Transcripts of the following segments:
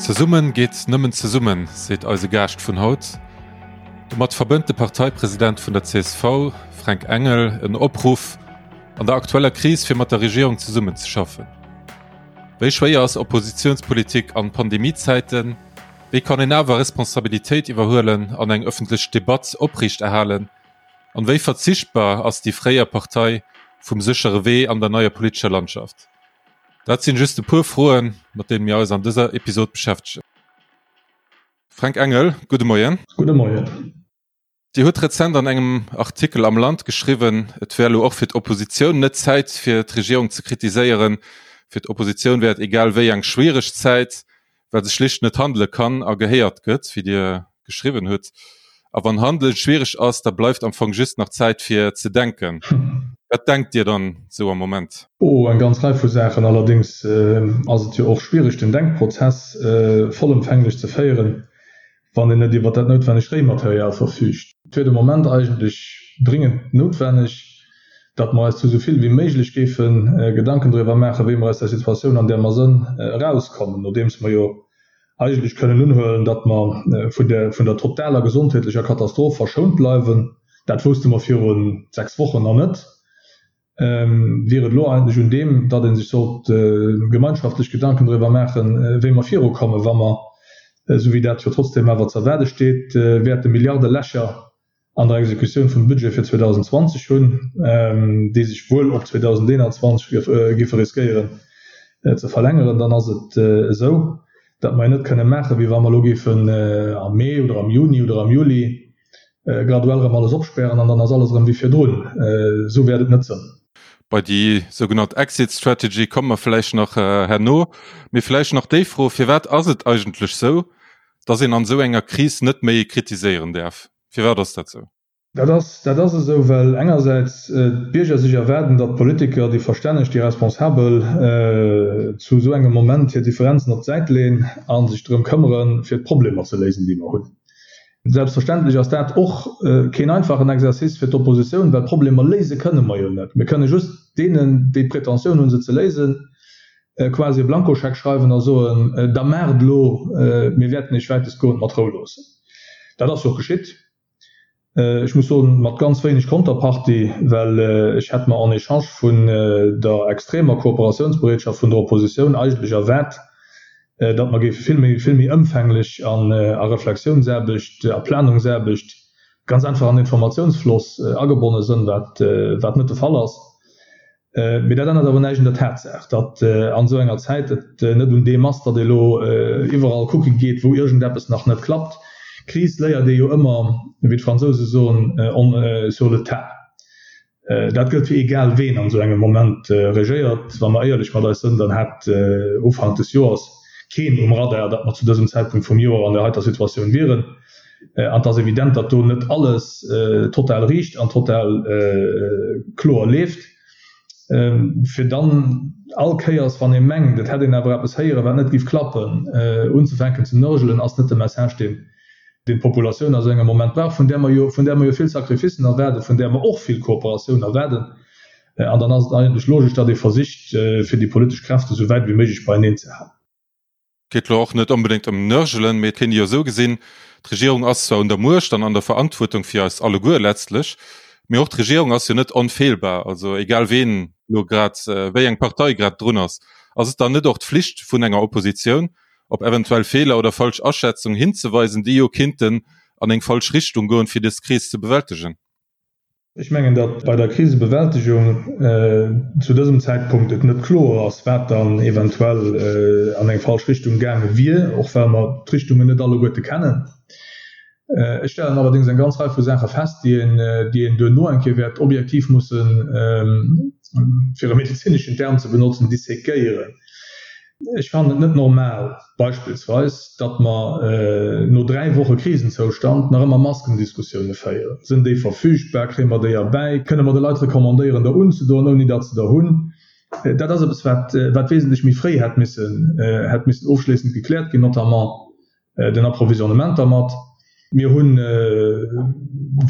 Zesummen geet nëmmen zesummen, seet eise Gaascht vun haut. Domat verbënnt de Parteipresident vun der csv, Fränk Engel, en Opruff an der aktueller Kris fir mat der Regierung zesummenzeschaffen. Wéi schwéier ass Oppositiounspolitik an Pandemiezäiten? Wéi kann een awer Responsabilitéit iwwerhuelen an eng ëffentlech Debatt opriichterhalen? An wéi verzichtbar ass déi fréier Partei vum séchere Wee an der neier politescher Landschaft? Dat sinn just e puer Froen, mat deene mir eis an dëser Episod beschäftegen. Fränk Engel, gudde Moien. Gudde Moien. Dir hutt rezent an engem Artikel am Land geschriwwen, et wär elo och fir d'Oppositioun net Zäit fir d'Regierung ze kritiséieren. Fir d'Oppositioun wär et egal wéi eng schwiereg Zäit, well se schlicht net handele kann a gehéiert gëtt, wéi Dir geschriwwen hutt. A wann handelen schwiereg ass, da bleift am Fong just nach Zäit fir ze denken. Wat denkt Dir dann esou am Moment? Oh, eng ganz Rei vu Saachen. Allerdéngs ass et jo och schwiereg den Denkprozess vollëmfänglech ze féieren, wann een net iwwer dat noutwennegt Réimaterial verfüügt. Et wier de Moment eigentlech dringend noutwenneg, datt mer eis zu esou vill wéi méiglech géife Gedanken driwwer maachen, wéi mer aus där Situatioun, an där mer sënn, erauskommen, nodeems mer jo eigentlech kënnen unhuelen, datt mer vun der vun der totaler gesondheetlecher Katastroph verschount bleiwen. Dat wousste mer viru 6 Wochen nach net. Wier et elo eigentlech un deem, datt ee sech sollt gemeinschaftlech Gedanken driwwer maachen, wéi mer virukommen, wa mer, esou wéi dat jo trotzdem awer ze erwaarde steet, wäerte Milliardelächer an der Exekutioun vum Budget fir 2020 hunn, déi sech wuel op 2021 géife riskéieren ze verlängeren, dann ass et esou, datt mer jo net kënne maachen, wéi wa mer elo géifen am Mee oder am Juni oder am Juli graduell erëm alles opspären an dann ass alles erëm wéi virdrun. Esou wäert et net sënn. Bei déi sougenannt Exit Strategy komme mer vläicht nach herno. Mee vläicht nach déi Fro, Firwat ass et eigentlech sou, datt een an esou enger Kris net méi kritiséieren däerf? Firwat ass dat sou? Dat ass, dat ass esou, well engersäits d'Bierger sech erwaarden, datt d'Politiker, déi Verstänneg, déi Responsabel zu esou engem Moment hir Differenzen op d'Säit leeën a sech drëm këmmeren, fir d'Problemer ze léisen, déi mer hunn. Selbstverständlech ass dat och keen einfachen Exercice fir d'Oppositioun, well Problemer léise kënne mer jo net. Mir kënne just deenen, déi d'Pretentioun hunn, se ze léisen, quasi e Blankoscheck schreiwen a soen, Da maacht elo, mir wäerten Iech wäitestgoend mat Rou loossen. Dat ass jo och geschitt. Ech muss soen, mat ganz wéineg Konterpartie, well ech hätt mer en échange vun der extremer Kooperatiounsbereetschaft vun der Oppositioun eigentlech erwaart, datt mer géife vill méi, vill méi ëmfänglech an a Reflexiounsaarbecht, a Planungsaarbecht, ganz einfach an Informatiounsfloss agebonne sënn, wat, wat net de Fall ass. Mee dat ännert awer näischt un der Tatsaach, datt an esou enger Zäit et net un deem ass, datt ee elo iwwerall kucke geet, wou iergendeppes nach net klappt. Kris léiert ee jo ëmmer, wéi d'Fransouse soen, on sur le tas. Dat gëllt fir egal ween an esou engem Moment regéiert. Wa mer éierlech mat eis sënn, dann hat Ufank des Joers keen um Radar, datt mer zu dësem Zäitpunkt vum Joer an där heiter Situatioun wieren. An et ass evident, datt do net alles total riicht an total kloer leeft. Fir dann all Kéiers, wann ee mengt, et hätt een awer eppes héieren, wat net géif klappen, unzefänken ze nörgelen, ass net de Message, deen deen d'Populatioun a sou engem Moment brauch, vun där mer jo, vun där mer jo vill Sacrificen erwaarden, vun där mer och vill Kooperatioun erwaarden. An dann ass et eigentlech logesch, datt ee versicht, fir déi politesch Kräfte sou wäit wéi méiglech beieneen ze halen. Et geet elo och net onbedéngt ëm Nörgelen, mee et kéint ee jo esou gesinn, D'Regierung ass zwar un der Muecht an an der Verantwuertung fir eis alleguer letztlech, mee och d'Regierung ass jo net onfeelbar. Also egal ween elo grad, wéi eng Partei grad drun ass, ass et dann net och d'Flicht vun enger Oppositioun, op eventuell Feeler oder falsch Aschätzung hinzeweisen, déi jo kinnten an eng falsch Richtung goen, fir des Kris ze bewältegen? Ech mengen, datt bei der Krisebewältegung zu dësem Zäitpunkt et net kloer ass, wat dann eventuell an eng falsch Richtung gaange wier, och well mer d'Richtungen net alleguerte kennen. Ech stellen allerdéngs eng ganz Rei vu Saache fest, déi een, déi een duerno eng Kéier wäert objektiv mussen, fir e medezineschen Term ze benotzen, dissekéieren. Ech fannen et net normal, beispillsweis, datt mer no 3 Woche Krisenzoustand nach ëmmer Maskendiskussioune féieren. Sinn déi verfügbar? Kréie mer déi erbäi? Kënne mer de Leit recommandéieren, der unzedoen, ouni datt se der hunn? Dat ass eppes, wat wat wesentlech méi fréi hätt missen hätt missen ofschléissend gekläert ginn, notamment den Approvisionnement dermat. Mir hunn,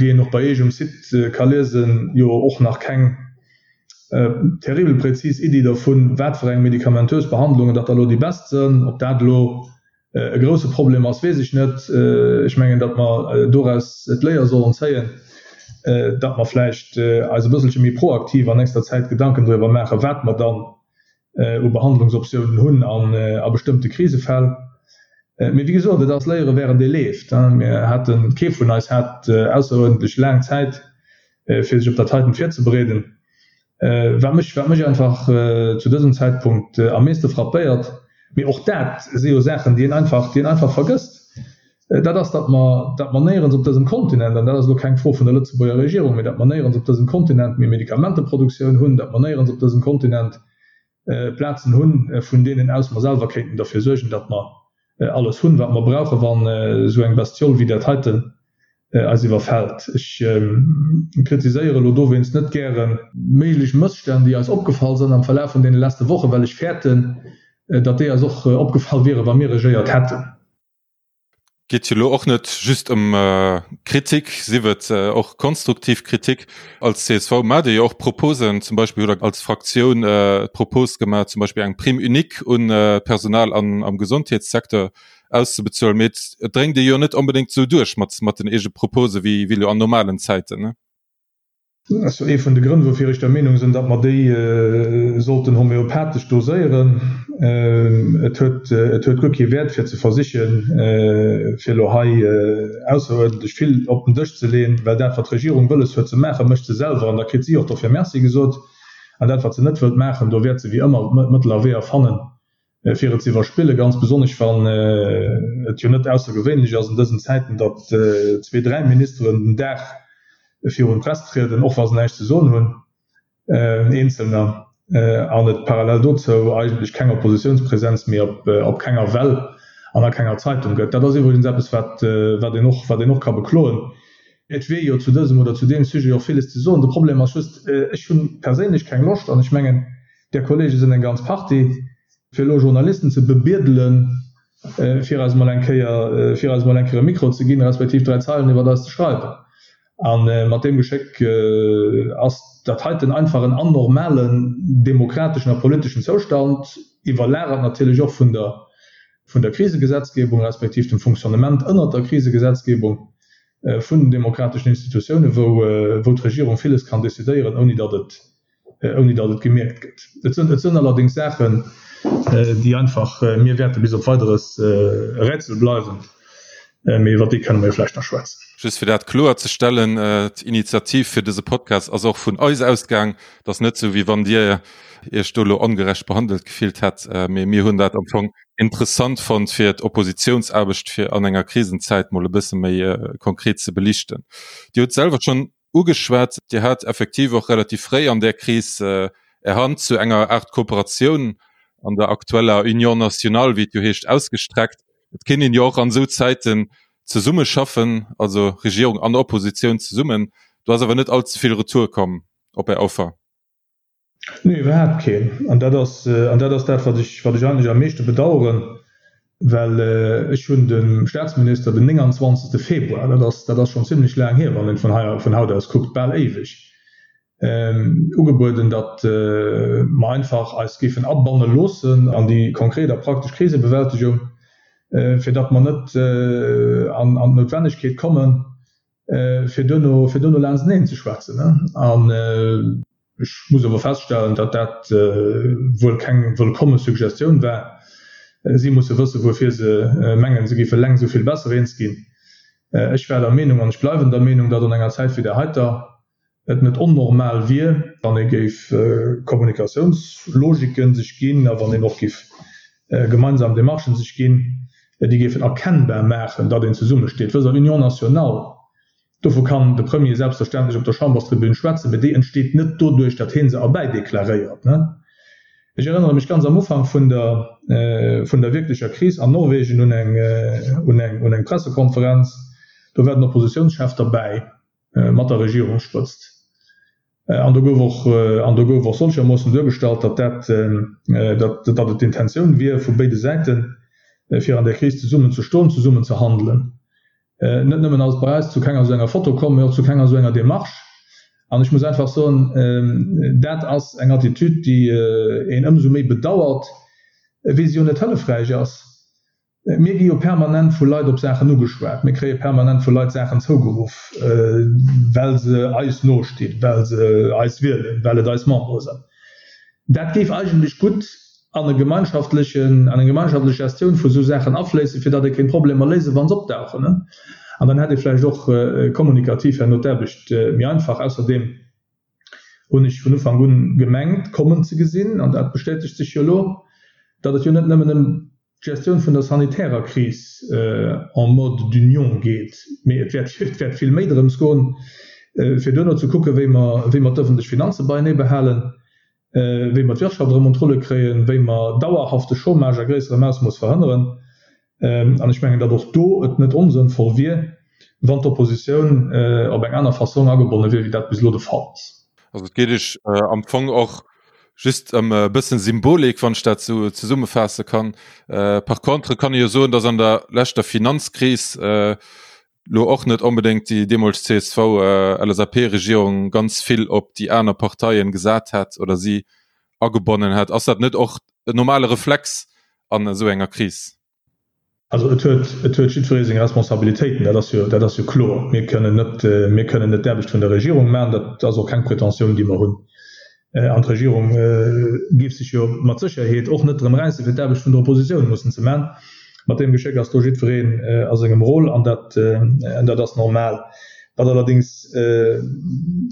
wéi een och bei Iech um Site ka liesen, jo och nach keng terribel präzis Iddi dervun, wat fir eng medikamentös Behandlungen datt da elo déi best sënn, ob dat elo. e grousse Problem ass, weess ech net. Ech mengen, datt mer doraus d'Léier sollen zéien, datt mer vläicht eis e bësselche méi proaktiv an nächster Zäit Gedanken driwwer maachen, wat mer dann u Behandlungsoptiounen hunn a bestëmmte Krisefäll. Mee wéi gesot, et ass Léiere während ee leeft. Mir haten, kee vun eis hat ausseruerdentlech laang Zäit, fir sech op dat heiten virzebereeden. Wat mech, wat mech einfach zu dësem Zäitpunkt am meeste frappéiert, mee och dat si jo Saachen, déi een einfach, déi een einfach vergësst, dat ass, datt mer, datt mer néierens op dësem Kontinent, an dat ass elo keng Fro vun der Lëtzebuerger Regierung, mee datt mer néierens op dësem Kontinent méi Medikamenteproduktioun hunn, datt mer néierens op dësem Kontinent Plazen hunn, vun deenen aus mer selwer kéinten derfir suergen, datt mer alles hunn, wat mer brauchen, wann esou eng Bestiole wéi dat heiten eis iwwerfält. Ech kritiséiere elo dowéinst net gäre méiglech Mësstänn, déi eis opgefall sinn am Verlaf vun deene leschte Wochen, well ech fäerten, datt déi eis och opgefall wieren, wa mir regéiert hätten. Geet jo elo och net just ëm Kritik, sief et och konstruktiv Kritik. Als csv maacht Dir jo och Proposen, zum Beispill hutt Der als Fraktioun d'Propos gemaach, zum Beispill eng Prime unique un d'Personal am Gesondheetssecteur auszebezuelen. Mee et dréngt ee jo net onbedéngt esou duerch mat den eege Propose wéi elo an normalen Zäiten. Dat ass jo ee vun de Grënn, woufir ech der Meenung sinn, datt mer déi sollten homeopathesch doséieren. Et huet, et huet guer kee Wäert, fir ze versichen, fir elo hei ausseruerdentlech vill op den Dësch ze leeën, well dat, wat d'Regierung wëlles huet ze maachen, mécht se selwer an da kritt si och dofir Merci gesot. An dat, wat se net wëllt maachen, do wäert se wéi ëmmer Mëttel a Weeër fannen, fir et ze iwwerspillen, ganz besonnesch wann et jo net aussergewéinlech ass an dësen Zäiten, datt zwee, dräi Ministeren den Dag virun d'Press trieden, och wa se näischt ze soen hunn, eenzelner, an et parallel dozou eigentlech keng Oppositiounspresenz méi op kenger Well an a kenger Zeitung gëtt. Dat ass iwwregens eppes, wat een och, wat een och ka bekloen. Et wier jo zu dësem oder zu deem Sujet och villes ze soen. De Problem ass just, ech hu perséinlech keng Loscht, an ech mengen, Där Kollege sinn eng ganz Partie, fir elo Journalisten ze bebiedelen, fir eis emol eng Kéier, fir eis emol eng Kéier e Mikro ze ginn, respektiv dräi Zeilen iwwert eis ze schreiwen. A mat deem Geschéck ass dat heiten einfach en anormalen demokrateschen a politeschen Zoustand, iwwerlagert natierlech och vun der, vun der Krisegesetzgebung, respektiv dem Fonctionnement ënnert der Krisegesetzgebung vun den demokrateschen Institutiounen, wou, wou d'Regierung villes kann decidéieren, ouni datt et ouni datt et gemierkt gëtt. Et sënn, et sënn allerdéngs Saachen, déi einfach mir wäerte bis op Weideres e Rätsel bleiwen, mee iwwer déi kënne mer jo vläicht nach schwätzen. Just fir dat kloer ze stellen, D'Initiativ fir dëse Podcast ass och vun eis ausgaang. Et ass net esou, wéi wann Dir Iech do elo ongerecht behandelt gefillt hätt, mee mir hunn dat am Fong interessant fonnt, fir d'Oppositiounsaarbecht fir an enger Krisenzäit mol e bësse méi konkret ze belichten. Dir hutt selwer schonn ugeschwat. Dir hat effektiv och relativ fréi an där Kris Är Hand zu enger Aart Kooperatioun an der aktueller Union nationale, wéi et jo heescht, ausgestreckt. Et kéint een jo och an esou Zäiten zesummeschaffen, also Regierung an Oppositioun zesummen. Do ass awer net allze vill Retour komm op Är Offer. Nee, iwwerhaapt keen. An dat ass, an dat ass dat, wat ech, wat ech eigentlech am meeschte bedauern, well ech hunn dem Statsminister den 29. Februar, dat ass, dat ass schonn zimlech laang hier, wann een vun hei, vun haut aus kuckt, bal éiweg, ugebueden, datt mer einfach eis géifen abanne loossen an déi konkret a praktesch Krisebewältegung, fir datt mer net an d'Noutwennegkeet kommen, fir duerno, fir duerno laansteneen ze schwätzen. An ech muss awer feststellen, datt dat wuel keng wëllkomme Suggestioun war. Si musse wëssen, wuerfir se mengen, se géife leng esou vill besser eens ginn. Ech war der Meenung an ech bleiwen der Meenung, datt an enger Zäit wéi där heiter et net onnormal wier, wann ee géif Kommunikatiounslogiken sech ginn a wann een och géif gemeinsam Demarchen sech ginn, déi géifen erkennbar maachen, datt een zesummesteet. Wësst Der, Union nationale, dovu kann de Premier selbstverständlech op der Chamberstribün schwätzen, mä déi entsteet net doduerch, datt hie se erbäideklaréiert. Ech erënnere mech ganz am Ufank vun der, vun der wierklecher Kris an Norwegen un eng, un eng, un eng Pressekonferenz, do war den Oppositionschef derbäi. mat der Regierungsspëtzt. An do gouf och, an do gouf och solchermoossen duergestallt, datt dat, datt, datt et d'Intentioun wier vu béide Säiten, fir an där Kris zesummen ze stoen, zesummen ze handelen. Net nëmmen ass et bei eis zu kenger esou enger Foto komm, mee och zu kenger esou enger Démarche. An ech muss einfach soen, dat ass eng Attitude, déi een ëmsou méi bedauert, wéi se jo net hëllefräich ass. Mir gi jo permanent vu Leit op Saachen ugeschwat, mir kréie permanent vu Leit Saachen zougeruff, well se eis nostinn, well se eis wielen, well et eis Membere sinn. Dat géif eigentlech gutt an e gemeinschaftlechen, an eng gemeinschaftlech Gestioun vu sou Saachen afléissen, fir datt ee kéint Problemer léisen, wa se opdauchen. An dann hätt ee vläicht och kommunikativ herno d'Aarbecht méi einfach. Ausserdeem hunn ech vun Ufank un gemengt kommen ze gesinn, an dat bestätegt sech jo elo, datt et jo net nëmmen ëm d'Gestioun vun der sanitärer Kris en mode d'union geet, mee et wäert et wäert vill méi drëms goen, fir duerno ze kucken, wéi mer wéi mer d'ëffentlech Finanze beienee behalen, wéi mer d'Wirtschaft erëm un d'Rulle kréien, wéi mer dauerhafte Chômage a gréisserem Ausmooss verhënneren. An ech mengen, datt och do et net onsënnvoll wier, wann d'Oppositioun op eng aner Fassong agebonne wier, wéi dat bis elo de Fall ass. Also et geet Iech am Fong och just ëm e bëssen Symbolik, wann ech dat esou zesummefaasse kann. Par contre kann ee jo soen, datt an der leschter Finanzkris elo och net onbedéngt déi deemools CSV-LSAP-Regierung ganz vill op déi aner Parteien gesat hätt oder si agebonnen hätt. Ass dat net och en normale Reflex an esou enger Kris? Also et huet, et huet jiddweree seng Responsabilitéiten, dat ass jo, dat ass jo kloer. Mir kënnen net, mir kënnen net d'Aarbecht vun der Regierung maachen, dat ass och keng Pretentioun, déi mer hunn. An d'Regierung géif sech jo mat Sécherheet och net drëm räissen, fir d'Aarbecht vun der Oppositioun mussen ze maachen. Mat deem Geschéck ass do jiddwereen a sengem Rôle an dat, dat ass normal. Wat allerdéngs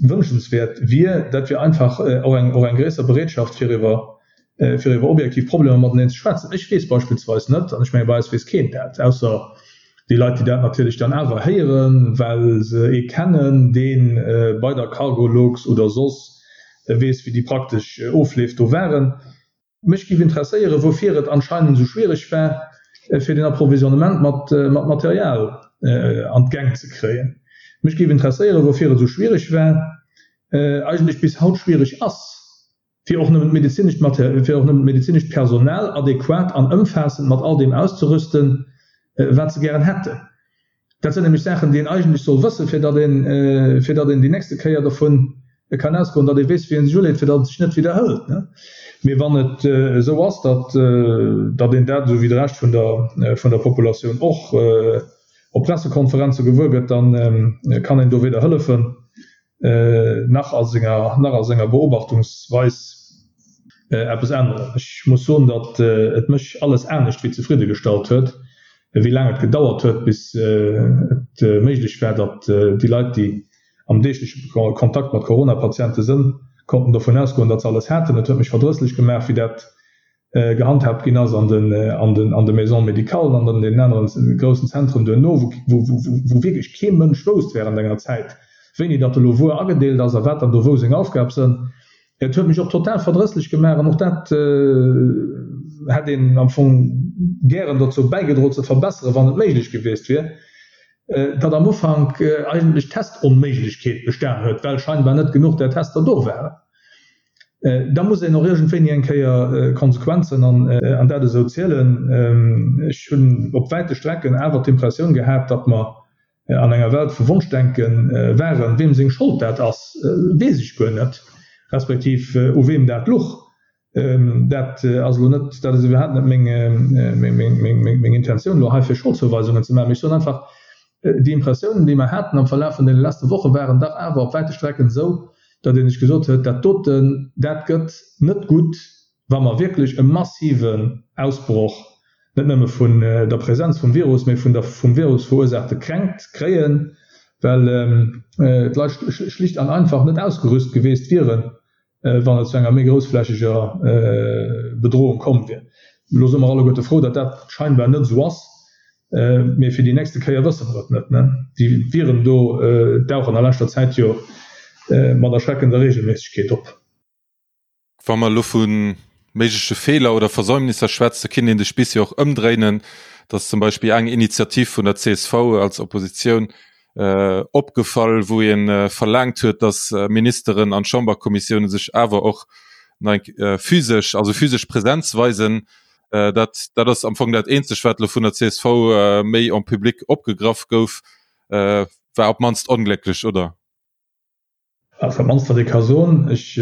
wënschenswäert wier, dat wier einfach och eng, och eng gréisser Bereetschaft, fir iwwer, fir iwwer objektiv Problemer mateneen ze schwätzen. Ech weess beispillsweis net, an ech menge bei eis weess keen dat, ausser déi Leit, déi dat natierlech dann awer héieren, well se ee kennen, dee bei der Cargolux oder soss weess, wéi déi praktesch Ofleef do waren. Mech géif interesséieren, woufir et anscheinend esou schwiereg war, fir den Approvisionnement mat Material an d'Gäng ze kréien. Mech géif interesséieren, woufir et esou schwiereg war, eigentlech bis haut schwiereg ass, fir och nëmmen d'medezinescht Mater-, fir och nëmmen d'medezinescht Personal adequat an ëmfaassend mat all deem auszerüsten, wat se gären hätten. Dat sinn nämlech Saachen, déi een eigentlech soll wëssen, fir datt een, fir datt een déi nächste Kéier dovun kann ausgoen, datt ee weess, wéi ee sech uleet, fir datt et sech net widderhëlt. Mee wann et esou ass, datt, datt een dat, esou wéi de Rescht vun der, vun der Populatioun och, op Pressekonferenze gewuer gëtt, da kann een do weder hëllefen, nach a senger, nach a senger Beobachtungsweis eppes änneren. Ech muss soen, datt et mech alles anescht wéi zefridde gestallt huet, wéi laang et gedauert huet, bis et méiglech war, datt déi Leit, déi am deegleche Kontakt mat Corona-Patiente sënn, konnten dovun ausgoen, datt se alles haten. Et huet mech verdrësslech gemaach, wéi dat gehandhaabt ginn ass an den, an den, an de Maisons médicales an an deenen aneren groussen Zentren duerno, wou, wou, wou wierklech kee Mënsch wousst während enger Zäit, wéini datt elo wuer agedeelt ass a wat dann do wou seng Aufgab sënn. Et huet mech och total verdrësslech gemaach an och dat hätt een am Fong gären dozou bäigedroe ze verbesseren, wann et méiglech gewiescht wier, datt am Ufank eigentlech Testonméiglechkeet bestan huet, well scheinbar net genuch där Tester do waren. Da muss een och iergendwéini eng Kéier Konsequenzen an dat esou zielen. Ech hunn op wäite Strecken awer d'Impressioun gehat, datt mer an enger Welt vu Wonschdenke waren. Weem seng Schold dat ass, weess ech guer net, respektiv u weem dat luch. Dat ass elo net, dat ass iwwerhaapt net meng Intentioun elo hei fir Scholdzouweisungen ze maachen. Mee ech soen einfach, Déi Impressiounen, déi mer haten am Verlaf vun deene leschte Woche waren dach awer op wäite Strecken esou, datt ee sech gesot huet, dat doten, dat gëtt net gutt, wa mer wierklech e massiven Ausbroch net nëmme vun der Präsenz vum Virus, mee vun der vum Virus verursaachte Kränkt kréien, well d'Leit schlicht an einfach net ausgerüst geweest wieren, wann et zu enger méi groussflächeger Bedrohung komm wier. Elo si mer alleguerte frou, datt dat scheinbar net esou ass, mee fir déi nächste Kéier wësse mer et net. Déi Viren do dauchen a leschter Zäit jo mat erschreckender Reegelméissegkeet op. Wa mer elo vu méigleche Feeler oder Versäumnisser schwätzen, kinnt een de Spiss jo och ëmdréinen, datt zum Beispill eng Initiativ vun der csv als Oppositioun opgefall, wou ee verlaangt huet, datt Ministeren an Chamberkommissioune sech awer och physesch, also physesch Präsenz weisen. Dat dat ass am Fong dat eenzegt, wat elo vun der csv méi en public opgegraff gouf, war op d'mannst onglécklech, oder? Also dat mannst wat ee ka soen, ech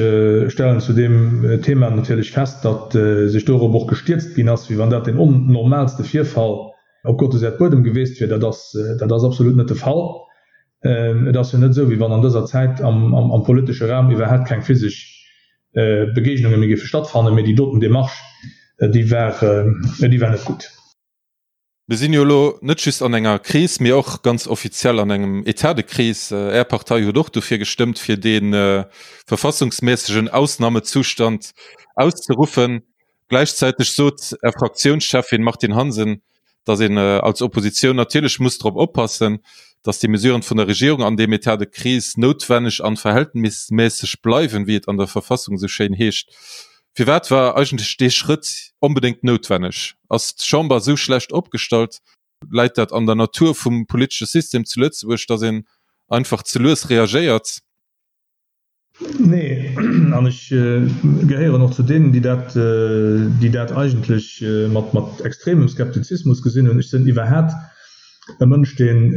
stellen zu deem Thema natierlech fest, datt sech dorop och gestierzt ginn ass, wéi wann dat deen onnormaalste Virfall. Op Gottes Äerdbuedem geweest wier. Dat ass, dat ass absolut net de Fall. Et ass jo net esou, wéi wann an dëser Zäit am, am politesche Raum iwwerhaapt keng physesch Begegnunge méi géife stattfannen. Mee déi doten Démarche, déi war, déi war net gutt. Mir sinn jo elo net just an enger Kris, mee och ganz offiziell an engem État de crise. Är Partei huet och dofir gestëmmt, fir dee verfassungsmässegen Ausnahmezustand auszeruffen. Gläichzäiteg sot Är Fraktiounscheffin Martine Hansen, datt een als Oppositioun natierlech muss drop oppassen, datt déi Mesuren vun der Regierung an deem État de crise noutwenneg an verhältnismässeg bleiwen, wéi et an der Verfassung esou schéin heescht. Firwat war eigentlech dee Schrëtt onbedéngt noutwenneg? Ass d'Chamber esou schlecht opgestallt? Läit dat an der Natur vum politesche System zu Lëtzebuerg, datt een einfach ze lues reagéiert? Nee, an ech gehéieren och zu deenen, déi dat, déi dat eigentlech mat, mat extremem Skeptizismus gesinn hunn. Ech sinn iwwerhat e Mënsch, deen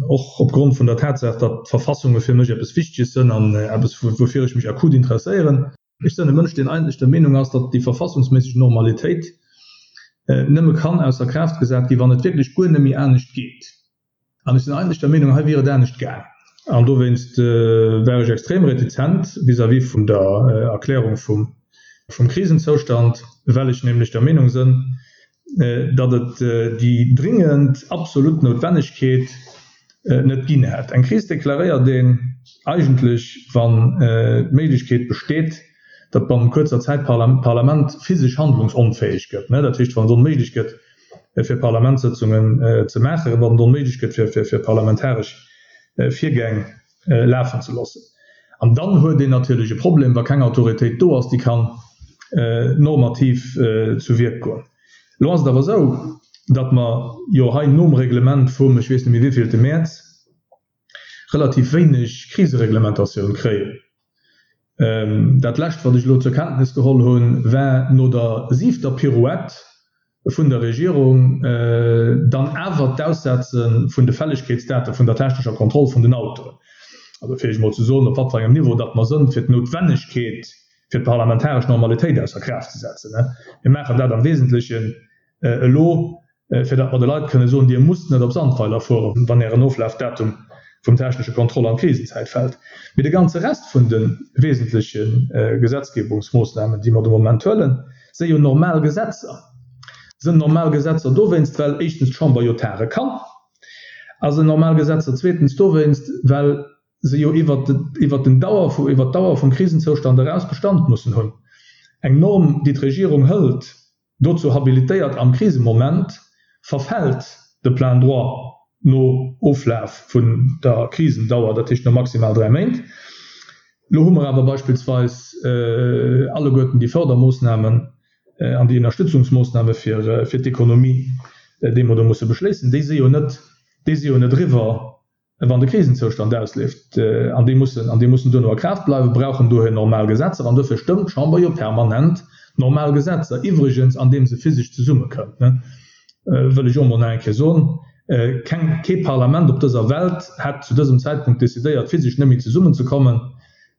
och opgrond vun der Tatsaach, datt d'Verfassunge fir mech eppes Wichteges sënn an eppes, woufir ech mech akut interesséieren, ech sënn e Mënsch, deen eigentlech der Meenung ass, datt déi verfassungsméisseg Normalitéit nëmme kann ausser Kraaft gesat ginn, wann et wierklech guer net méi anescht geet. An ech sinn eigentlech der Meenung, hei wier et anescht gaang. An dowéinst war ech extrem retizent vis-à-vis vun der Erklärung vum Krisenzoustand, well ech nämlech der Meenung sënn, datt et déi dringend, absolut Noutwennegkeet net ginn hätt. Eng Kris deklaréiert een eigentlech, wann d'Méiglechkeet besteet, datt bannent kuerzer Zäit d'Parlament physesch handlungsonfäeg gëtt, dat heescht, wann et onméiglech gëtt, fir Parlamentssëtzungen ze maachen, wann et onméiglech gëtt, fir parlamentaresch Virgäng lafen ze loossen. An dann huet een natierlech e Problem, wa keng Autoritéit do ass, déi kann normativ zu Wierk goen. Elo ass et awer esou, datt mer jo hei nom Reglement vum, ech weess net méi wéivillte Mäerz, relativ wéineg Krisereglementatioun kréien. Dat Lescht, wat ech elo zur Kenntnis geholl hunn, war no der siwter Pirouette vun der Regierung dann awer d'Aussetze vun de Fällegkeetsdate vun der technescher Kontroll vun den Autoen. Also fir Iech emol ze soen, op wat fir engem Niveau datt mer sënn, fir d'Noutwennegkeet fir d'parlamentaresch Normalitéit ausser Kraaft ze setzen. Mir maachen dat am Wesentlechen elo, fir datt mer de Leit kënne soen, Dir musst net op Sandweiler fueren, wann Ären Oflafdatum vum technesche Kontroll an d'Krisenzäit fält. Mee de ganze Rest vun de wesentleche Gesetzgebungsmoossnamen, déi mer de Moment huelen, si jo normal Gesetzer. Sinn normal Gesetzer dowéinst, well éischtens d'Chamber jo tage kann, a sinn normal Gesetzer zweetens dowéinst, well se jo iwwert den Dauer, iwwert d'Dauer vum Krisenzoustand eraus Bestand mussen hunn. Eng Norm, déi d'Regierung hëlt, Dozou habilitéiert am Krisemoment, verfält de plein droit no Oflaf vun der Krisendauer, dat heescht no maximal 3 Méint. Elo hu mer awer beispillsweis alleguerten déi Fördermoossnamen an déi Ënnerstützungsmoossname fir d'Ekonomie, déi mer do musse beschléissen, déi si jo net, déi si jo net eriwwer. Wann de Krisenzoustand ausleeft, an déi mussen, an déi mussen duerno a Kraaft bleiwen, brauchen dohier normal Gesetzer. An dofir stëmmt d'Chamber jo permanent normal Gesetzer, iwwregens andeem se physesch zesummekënnt, wëll ech och emol nach eng Kéier soen. Keng, kee Parlament op dëser Welt hätt zu dësem Zäitpunkt decidéiert, physesch net méi zesummenzekommen.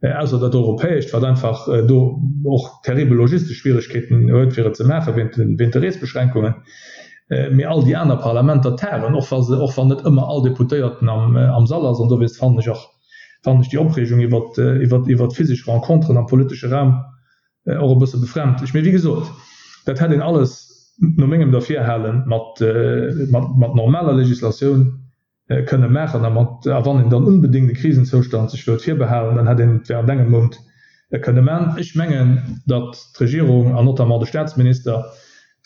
Ausser dat Europäescht, wat einfach do och terribel logistesch Schwieregkeeten huet, fir et ze maachen, wéint de Reesbeschränkungen. Mee all déi aner Parlamenter tagen, och wa se, och wann net ëmmer all Deputéierten am Sall ass. An dowéinst fannen ech och, fannen ech déi Opreegung iwwert, iwwert, iwwert physesch Renconteren am politesche Raum och e bësse befremdlech. Mee wéi gesot, dat hätt een alles no mengem Derfirhale mat, mat, mat normaler Legislatioun kënne maachen a mat, a wann een dann unbedéngt e Krisenzoustand sech wëllt virbehalen, dann hätt een et während engem Mount kënne man. Ech mengen, datt d'Regierung an notamment de Statsminister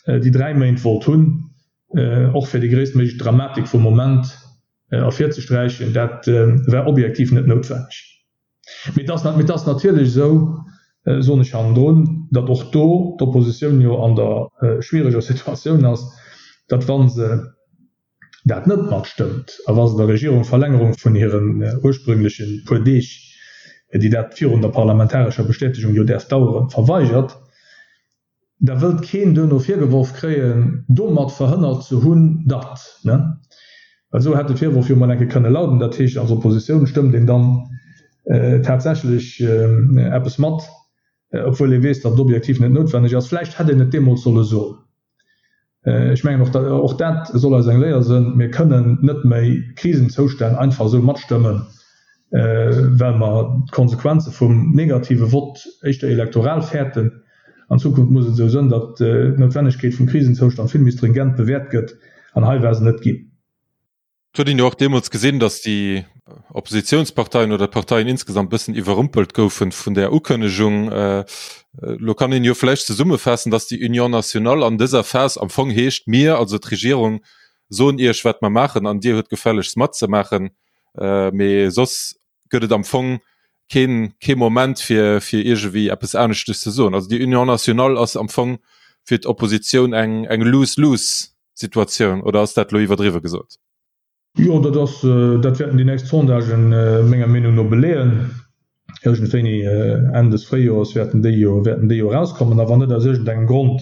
déi 3 Méint wollt hunn, och fir déi gréisstméiglech Dramatik vum Moment ervirzesträichen. Dat war objektiv net noutwenneg. Mee et ass, mee et ass natierlech esou, soen ech hannendrun, datt och do d'Oppositioun jo an der schwiereger Situatioun ass, datt wa se dat net matstëmmt a wa se der Regierung d'Verlängerung vun hiren ursprüngleche puer Deeg, déi dat virun der parlamentarescher Bestätegung jo däerf daueren, verweigert, da wëllt keen duerno virgeworf kréien, domat verhënnert ze hunn, datt, ne? Well esou hätt de Virworf jo mol eng Kéier kënne lauden. Dat heescht, als Oppositioun stëmmt een dann tatsächlech eppes mat, obwuel ee weess, datt et objektiv net noutwenneg ass. Vläicht hätt een et deemools solle soen. Ech mengen, och och dat soll eis eng Léier sënn, Mir kënnen net méi Krisenzoustänn einfach esou matstëmmen, well mer d'Konsequenze vum negative Vott éischter elektoral fäerten. An Zukunft muss et esou sënn, datt d'Noutwennegkeet vum Krisenzoustand vill méi stringent bewäert gëtt, an hei war se net ginn. Et huet een jo och deemools gesinn, datt déi Oppositionsparteien oder d'Parteien insgesamt bëssen iwwerrumpelt goufen vun där Ukënnegung. Elo kann een jo vläicht zesummefaassen, datt déi Union nationale an dëser Phas am Fong heescht, Mir, also d'Regierung, soen Iech, wat mer maachen, an Dir huet gefällegst matzemaachen. Mee soss gëtt et am Fong keen, kee Moment, fir, fir iergendwéi eppes aneschtes ze soen. Also déi Union nationale ass am Fong fir d'Oppositioun eng, eng Lose-lose. Situatioun, oder ass dat elo iwwerdriwwe gesot? Jo, dat ass, dat wäerten déi nächst Sondagen menger Meenung no beleeën. Iergendwéini Enn des Fréijoers wäerten déi jo, wäerten déi jo erauskommen. A wann net aus iergendengem Grond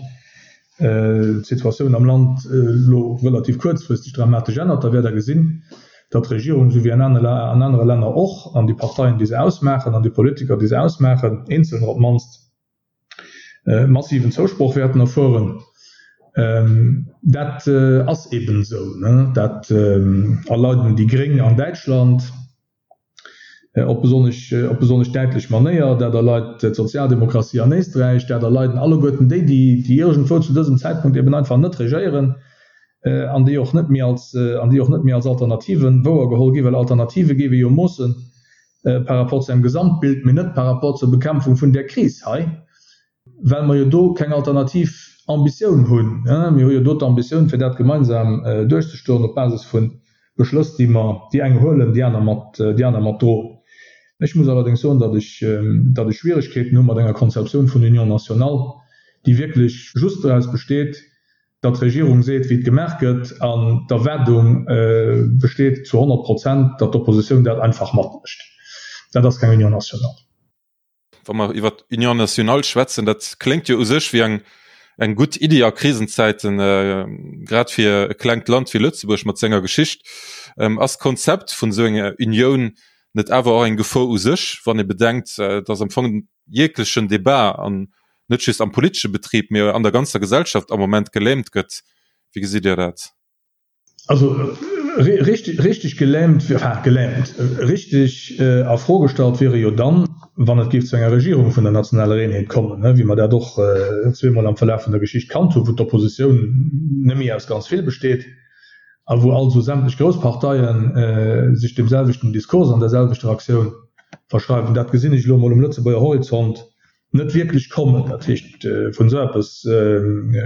d'Situatioun am Land elo relativ kuerzfristeg dramatesch ännert, da wäert Der gesinn, datt d'Regierung, esou wéi an anere Länner och, an déi Parteien, déi se ausmaachen, an déi Politiker, déi se ausmaachen, eenzelner op d'mannst, massiven Zousproch wäerten erfueren. Dat ass eben esou. Dat erleiden déi Gréng an Däitschland op besonnesch, op besonnesch däitlech Manéier. Dat erleit d'Sozialdemokratie an Éisträich. Dat erleiden alleguerten déi, déi iergendwou zu dësem Zäitpunkt eben einfach net regéieren an déi och net méi als, an déi och net méi als Alternativen wouergeholl ginn, well Alternative géif ee jo moossen par rapport zu engem Gesamtbild, mee net par rapport zur Bekämpfung vun där Kris hei, well mer jo do keng alternativ Ambitioun hunn. Mir hu jo do d'Ambitioun, fir dat gemeinsam duerchzestoen op Basis vu Beschlëss, déi mer, déi eng huelen, déi aner mat, déi aner mat droen. Ech muss allerdéngs soen, datt ech, datt ech Schwieregkeeten hu mat enger Konzeptioun vun Union nationale, déi wierklech just doraus besteet, datt d'Regierung seet, wéi et gemaach gëtt, an d'Erwaardung besteet zu 100 Prozent, datt d'Oppositioun dat einfach matmécht. Dat ass keng Union nationale. Wa mer iwwer d'Union nationale schwätzen, dat kléngt jo u sech wéi eng, eng gutt Iddi a Krisenzäiten, grad fir e klengt Land wéi Lëtzebuerg mat senger Geschicht. Ass d'Konzept vun esou enger Unioun net awer och eng Gefor u sech, wann ee bedenkt, datt am Fong jeglechen Debat an net just am politesche Betrib, mee an der ganzer Gesellschaft am Moment gelähmt gëtt. Wéi gesitt Dir dat? Also richteg, richteg gelähmt, enfin gelähmt, richteg a Fro gestallt wier e jo dann, wann et géif zu enger Regierung vun der nationaler Eenheet kommen, wéi mer dat och zweemol am Verlaf vun der Geschicht kannt hunn, wou d'Oppositioun net méi aus ganz vill besteet a wou also sämtlech grouss Parteie sech deemselwechten Diskurs an derselwechter Aktioun verschreiwen. Dat gesinn ech elo emol um Lëtzebuerger Horizont net wierklech kommen. Dat heescht, vun esou eppes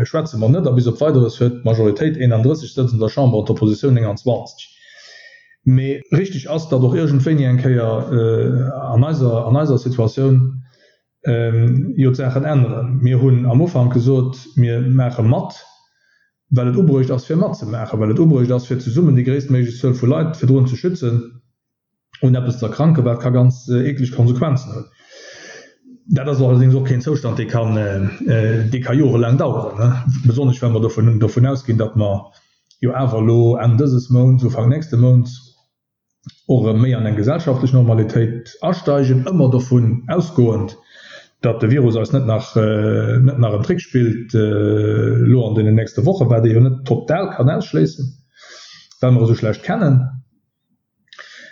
schwätze mer net. A bis op Weideres huet d'Majoritéit 31 Sëtz an der Chamber an d'Oppositioun 29. Mee richteg ass, datt och iergendwéini eng Kéier an eiser, an eiser Situatioun jo d'Saachen änneren. Mir hunn am Ufank gesot, mir maache mat, well et ubruecht ass fir matzemaachen, well et ubruecht ass fir zesummen déi gréisstméiglech Zuel vu Leit virdrun ze schützen. un eppes ze erkranken, wat ka ganz eekleg Konsequenzen hunn. Dat ass allerdéngs och keen Zoustand, dee kann, dee ka jorelaang daueren, besonnesch well mer dovun, dovun ausginn, datt mer jo awer elo Enn dëses Mounts, Ufank nächste Mounts och erëm méi an eng gesellschaftlech Normalitéit asteigen, ëmmer dovun ausgoend, datt de Virus eis net nach, net nach en Trick spillt elo an deenen nächste Wochen, wat ee jo net total kann ausschléissen, well mer e sou schlecht kennen.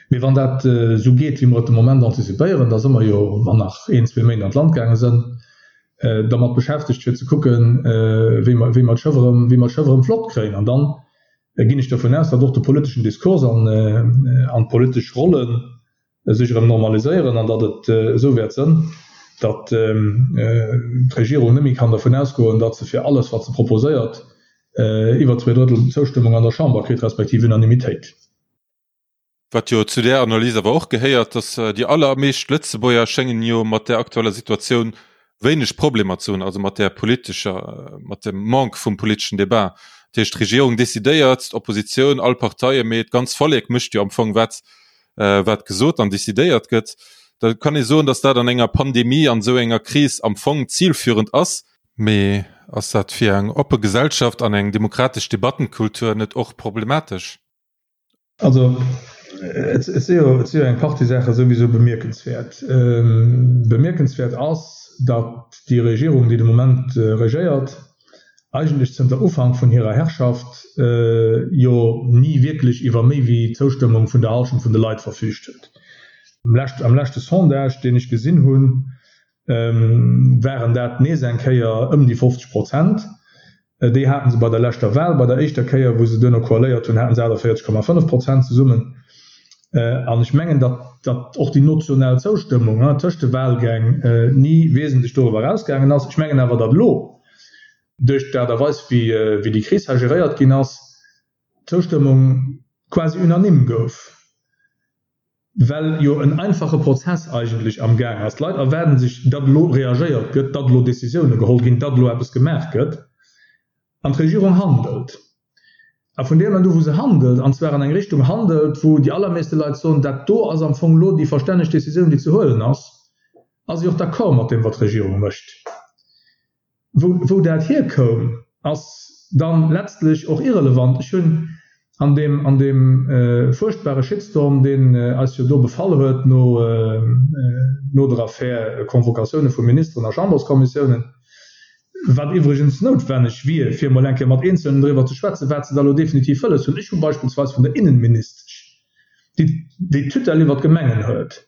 Mee wann dat esou geet, wéi mer et de Moment antizipéieren, da si mer jo, wann nach een, zwee Méint an d'Land gaange sënn, dermat beschäftegt fir ze kucken, wéi mer, wéi mer d'Schëff erëm, wéi mer d'Schëff erëm flott kréien. An dann ginn ech dovun aus, datt och de politeschen Diskurs an, an d'politesch Rolle sech erëm normaliséieren an datt et esou wäert sënn, datt d'Regierung net méi kann dervun ausgoen, datt se fir alles, wat se proposéiert, iwwer zweedrëttel Zoustëmmung an der Chamber kritt, respektiv Unanimitéit. Wat jo zu där Analys awer och gehéiert, datt déi allermeescht Lëtzebuerger schéngen jo mat där aktueller Situatioun wéineg Problemer ze hunn, also mat där politescher, mat dem Manque vum politeschen Debat. Dat heescht, d'Regierung decidéiert, d'Oppositioun, all Parteie, mee d'ganz Vollek mécht jo am Fong wat, wat gesot an decidéiert gëtt. Da kann ee soen, datt dat an enger Pandemie, an esou enger Kris am Fong zilführend ass. Mee ass dat fir eng oppe Gesellschaft an eng demokratesch Debattenkultur net och problematesch? Also, et si jo, et si jo eng Partie Saache souwisou bemierkenswäert. Bemierkenswäert ass, datt déi Regierung, déi de Moment regéiert. eigentlech zënter Ufank vun hirer Herrschaft jo ni wierklech iwwer méi wéi d'Zoustëmmung vun der Hallschent vun de Leit verfüügt huet. Am leschte Sondage, deen ech gesinn hunn, waren dat nees eng Kéier ëm déi 50 Prozent. Déi haten se bei der leschter Wahl. Bei der éischter Kéier, wou se duerno koaléiert hunn, haten se 48,5 Prozent zesummen. An ech mengen, datt datt och déi notional Zoustëmmung tëscht de Wahlgäng ni wesentlech doriwwer erausgaangen ass. Ech mengen awer, datt elo, duerch d'Aart a Weis, wéi déi Kris hei geréiert ginn ass, d'Zoustëmmung quasi unanime gouf. Well jo en einfache Prozess eigentlech am Gaang ass. D'Leit erwaarden sech, datt elo reagéiert gëtt, datt elo Décisioune geholl ginn, datt elo eppes gemaach gëtt. An d'Regierung handelt. A vun deem Moment u wou se handelt, an zwar an eng Richtung handelt, wou déi allermeeste Leit soen, dat do ass am Fong elo déi verstänneg Décisioun, déi ze huelen ass, ass si och d'accord mat deem, wat d'Regierung mécht. Wou dat hierkoum, ass dann letztlech och irrelevant. Ech hunn an deem, an deem fuerchtbare Shitstorm, deen eis jo do befall huet no, no der Affär Convocatioune vu Ministeren a Chamberskommissiounen, wat iwwregens noutwenneg wier, fir emol eng Kéier mat Eenzelnen driwwer ze schwätzen, wat se da elo definitiv wëlles hunn. Ech hu beispillsweis vun der Innenministesch, déi déi d'Tutelle iwwer d'Gemengen huet,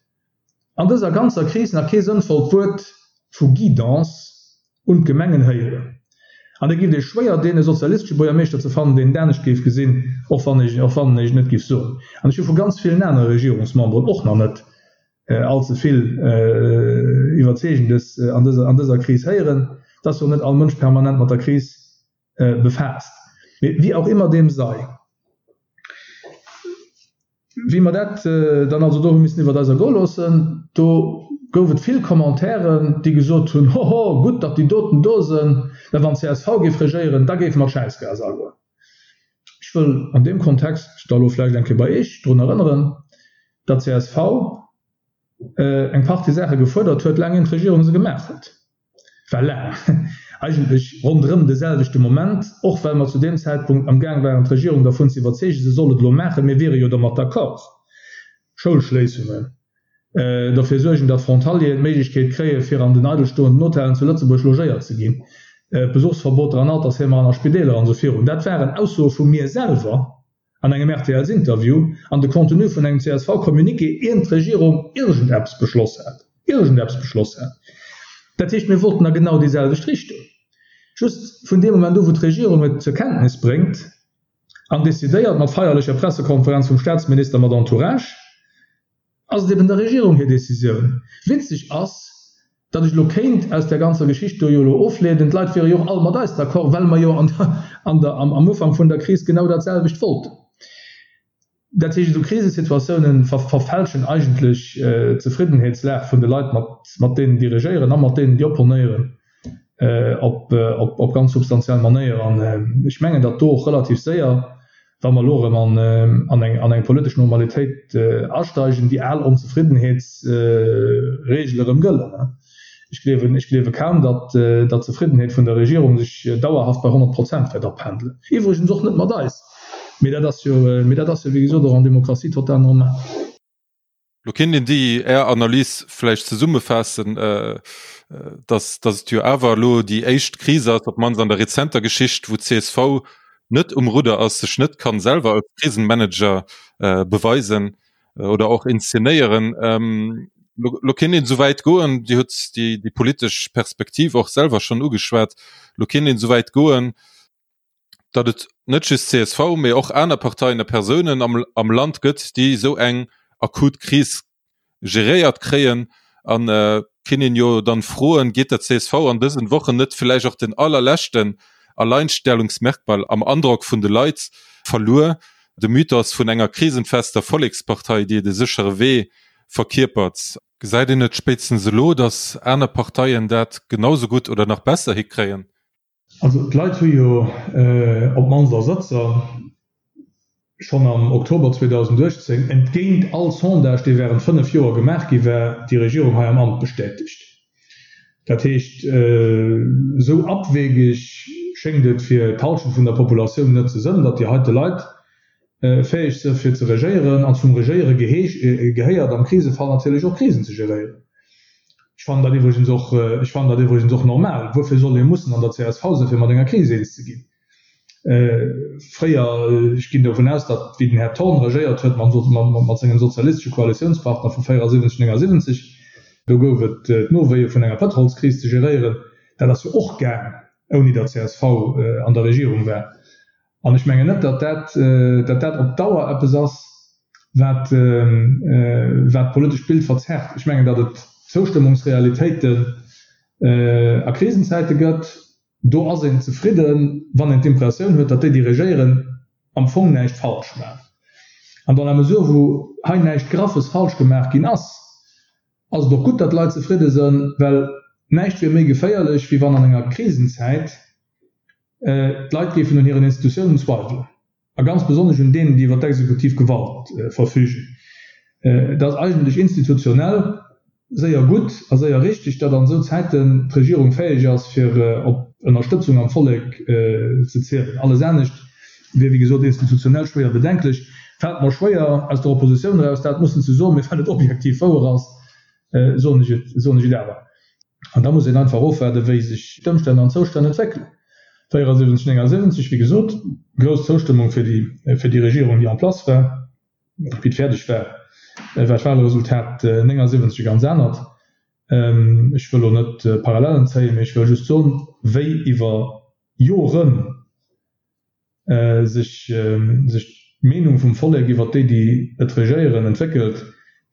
an dëser ganzer Kris nach kee sënnvollt Wuert vu Guidance un d'Gemengen héieren. An et giff ee schwéier deen e sozialistesche Buergermeeschter ze fannen, deen et anescht géif gesinn, och wann ech och wann ech et net giff soen. An ech hu vu ganz villen anere Regierungsmemberen och nach net all ze vill Iwwerzeegendes an dëser an dëser Kris héieren. Et ass jo net all Mënsch permanent mat der Kris befaasst. Mee wéi auch immer dem sei. Wéi mer dat dann also do hu missen iwwert eis ergoe loossen, do gouf et vill Commentairen, déi gesot hunn, Hoho, gutt, datt déi doten do sënn, well wann csv géif regéieren, da géife mer d'Schäissgas agoen. Ech wëll an deem Kontext da lo vläicht eng Kéier bei Iech drun erënneren, datt csv eng Partie Saache gefuerdert huet, laang ier d'Regierung se gemaach huet. War laang eigentlech ronderëm de selwechte Moment, och well mer zu deem Zäitpunkt am Gaang waren d'Regierung dervun ze iwwerzeegen, se soll et elo maachen, mir wiere jo domat d'accord, Schoulschléissungen, derfir suergen, datt Frontalieren d'Méiglechkeet kréie fir an den eidelstoenden Hotellen zu Lëtzebuerg logéiert ze ginn, Besuchsverboter an Altersheemer an a Spideeler an esou virun. Dat waren Aussoe vu mir selwer. An engem RTLs-Interview an de Contenu vun engem CSV-Communiqué, ient d'Regierung iergendeppes beschloss hat, iergendeppes beschloss hat. Dat heescht, mir wollten a genau déi selwecht Richtung. Just vun deem Moment u wou d'Regierung et zur Kenntnis bréngt an decidéiert, mat feierlecher Pressekonferenz vum Staatsminister mat Entourage, Ass et eben der Regierung hir Décisioun. Witzeg ass, datt ech elo kéint aus där ganzer Geschicht do jo elo ofleeden, d'Leit wiere jo och all mat eis d'accord, well mer jo an der, an der, am, am Ufank vun der Kris genau dat selwecht wollten. Dat heescht, esou Krisesituatiounen ver, verfälschen eigentlech d'Zefriddenheetslag vun de Leit, mat, mat deenen, déi regéieren a mat deenen, déi opponéieren. Op op ganz substantiell Manéier. An ech mengen, datt do och relativ séier, wa mer elo erëm an an eng an eng politesch Normalitéit asteigen, déi al Onzefriddenheetsregele erëm gëllen. Ech gleewen ech gleewe kaum, datt datt d'Zefriddenheet vun der Regierung sech dauerhaft bei 100 Prozent wäert apendelen. Iwwregens och net mat eis. Mee dat ass jo mee dat ass jo wéi gesot och an Demokratie total normal. Lo kéint een déi Är Analys vläicht zesummefaassen, datt datt et jo awer elo déi éischt Kris ass, op d'mannst an der rezenter Geschicht, wou d'CSV net um Rudder ass, sech net kann selwer als Krisenmanager beweisen oder och inszenéieren. Lo kéint een esouwäit goen, Dir hutt déi déi politesch Perspektiv och selwer schonn ugeschwat, lo kéint een esouwäit goen, datt et net just csv, mee och aner Parteien a Persounen am, am Land gëtt, déi esou eng akut Kris geréiert kréien. An äh, kinnt een jo dann froen, geet der csv an dësen Wochen net villäicht och den allerleschten Alleinstellungsmerkmal am Androck vun de Leit verluer, de Mythos vun enger krisenfester Vollekspartei, déi de séchere Wee verkierpert? Gesäit een net spéitstens elo, datt aner Parteien dat genau sou gutt oder nach besser hikréien? Also d'Leit hu jo op d'mannst a Sëtzer schonn am Oktober 2018, entgéint all Sondage, dee während 5 Joer gemaach gi war, déi Regierung hei am Amt bestätegt. Dat heescht, esou abwegeg schéngt et fir d'Halschent vun der Populatioun net ze sënn, datt déi heite Leit fäeg së fir ze regéieren, an zum Regéiere gehéiert am Krisefall natierlech och Krisen ze geréieren. Ech fannen dat iwwregens och, ech fannen dat iwwregens och normal. Wuerfir soll ee mussen an der csv sinn, fir mat enger Kris eens ze ginn? Fréier, ech ginn dovun aus, datt wéi den Här Thorn regéiert huet mat sengem sozialistesche Koalitiounspartner vu 74, 79, do gouf et d'Nowéie vun enger Pëtrolskris ze geréieren. Dat ass jo och gaang, ouni datt csv an der Regierung war. An ech mengen net, datt dat, datt dat op Dauer eppes ass, wat, wat d'politescht Bild verzerrt. Ech mengen, datt et Zoustëmmungsrealitéiten a Krisenzäite gëtt, Do ass een zefridden, wann een d'Impressioun huet, datt déi, déi regéieren, am Fong näischt falsch maachen. An dans la mesure wou hei näischt Graffes falsch gemaach ginn ass, ass et och gutt, datt d'Leit zefridde sënn, well näischt wier méi geféierlech, wéi wann an enger Krisenzäit d'Leit géifen un hiren Institutiounen zweiwelen. A ganz besonnesch un deenen, déi iwwer d'exekutiv Gewalt verfügen. Et ass eigentlech institutionell séier gutt a séier richteg, datt an esou Zäiten d'Regierung fäeg ass, fir op Ënnerstëtzung am Vollek ze zielen. Alles anescht wier, wéi gesot, institutionell schwéier bedenklech. Fält mer schwéier, aus der Oppositioun eraus dat mussen ze soen, mee well et objektiv wouer ass, soen ech et, soen ech et awer. An da muss een einfach ofwaarden, wéi sech d'Ëmstänn an d'Zoustänn entwéckelen. 74, 79, wéi gesot, grouss Zoustëmmung fir déi, fir déi Regierung, déi en place war. Wéi et fäerdeg war, war d'Wahlresultat 79 e ganz anert. Ech wëll elo net Parallellen zéien, mee ech wëll just soen, wéi iwwer Joren, sech sech d'Meenung vum Vollek iwwert déi, déi et regéieren, entwéckelt,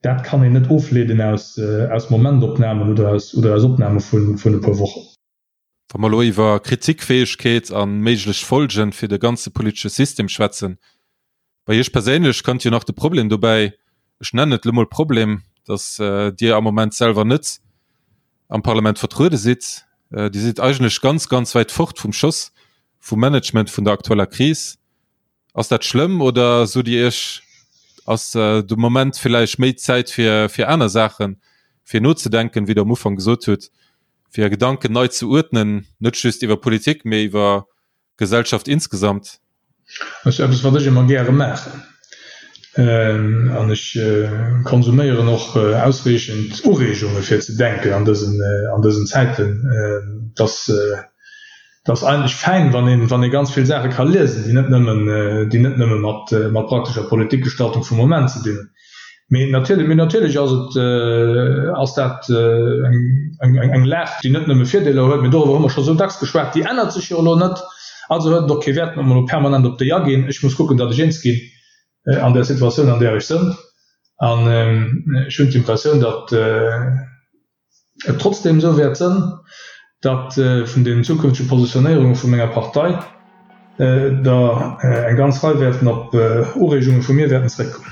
dat kann een net ofleeden aus aus Momentopnamen oder aus oder aus Opname vun vun e puer Wochen. Wa mer elo iwwer Kritikfäegkeet a méiglech Folgen fir de ganze politesche System schwätzen, bei Iech perséinlech kënnt jo nach de Problem dobäi, ech nennen et elo mol Problem, datt Dir am Moment selwer net am Parlament vertruede sidd. Dir sidd eigentlech ganz, ganz wäit fort vum Schoss vum Management vun der aktueller Kris. Ass dat schlëmm oder sot Dir Iech, ass de Moment villäicht méi Zäit fir fir aner Saachen, fir nozedenken, wéi Der am Ufank gesot hutt, fir Är Gedanken nei ze uerdnen, net just iwwer Politik, mee iwwer Gesellschaft insgesamt? Dat ass eppes, wat ech ëmmer gäre maachen. An ech konsuméieren och ausreechend Ureegunge fir ze denken an dësen, an dësen Zäiten. Et ass, et ass eigentlech fäin, wann een, wann ee ganz vill Saache ka liesen, déi net nëmmen, déi net nëmme mat, mat praktescher Politikgestaltung vum Moment ze dinn hunn. Mee natierlech, mee natierlech ass et, ass dat eng, eng Lag, déi net nëmme Virdeeler huet, mee doriwwer hu mer scho sou dacks geschwat, déi ännert sech jo elo net. Also huet et och kee Wäert, datt mer elo permanent op déi aginn. Ech muss kucken, datt ech eens ginn an där Situatioun, an där ech sënn. An ech hunn d'Impressioun, datt et trotzdem esou wäert sënn, datt vun den zukünftege Positionéierunge vu menger Partei der eng ganz Rei wäerten op Ureegunge vu mir wäerten zréckkommen.